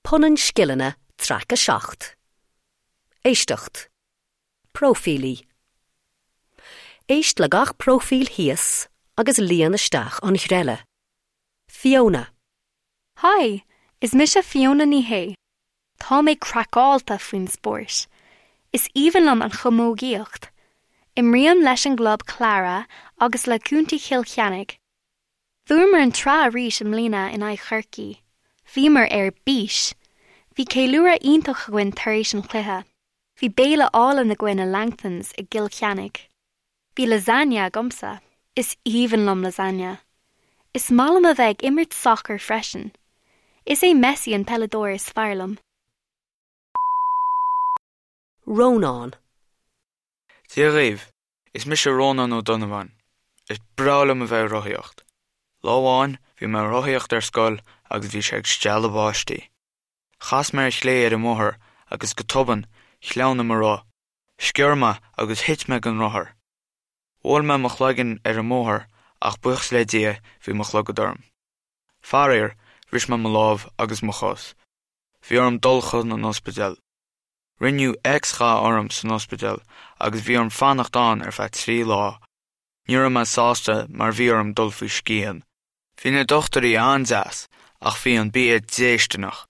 Punann Scileanna Traic 7. Éisteacht. Próifílí. Éist le gach próifíl thíos agus líon isteach an ghreille. Fiona. Hi, is mise Fiona Ní Shé. Tá mé craiceáilte faoin spórt. Is aoibhinn liom an chamógaíocht. Imrím leis an gclub Clara agus le Contae Chill Chainnigh. Bhuamar an tsraith arís i mbliana in aghaidh Chorcaí. Bhíomar ar bís! Bhí ceiliúradh iontach againn tar éis an chluiche. Bhí béile álainn againn i Langtons i gCill Chainnigh. Bhí lasagne agamsa. Is aoibhinn liom lasagne. Is maith liom a bheith ag imirt sacair freisin. Is é Messi an peileadóir is fearr liom. Rónán. Dia dhaoibh, is mise Rónán Ó Donnabháin. Is breá liom a bheith ag rothaíocht. Lá amháin, bhí mé ag rothaíocht ar scoil agus bhí sé ag stealladh báistí. Chas mé ar chlé ar an mbóthar agus go tobann, shleamhnaigh mo roth. Sciorr mé agus thit mé den rothar. Bhuail mé mo chloigeann ar an mbóthar ach buíochas le Dia bhí mo chlogad orm. Faraor, bhris mé mo lámh agus mo chos. Bhí orm dul chun an ospidéil. Rinneadh X-gha orm san ospidéal agus bhí orm fanacht ann ar feadh 3 lá. Ní raibh mé sásta mar bhí orm dul faoi scian. Bhí na dochtúirí an-deas ach bhí an bia déistineach.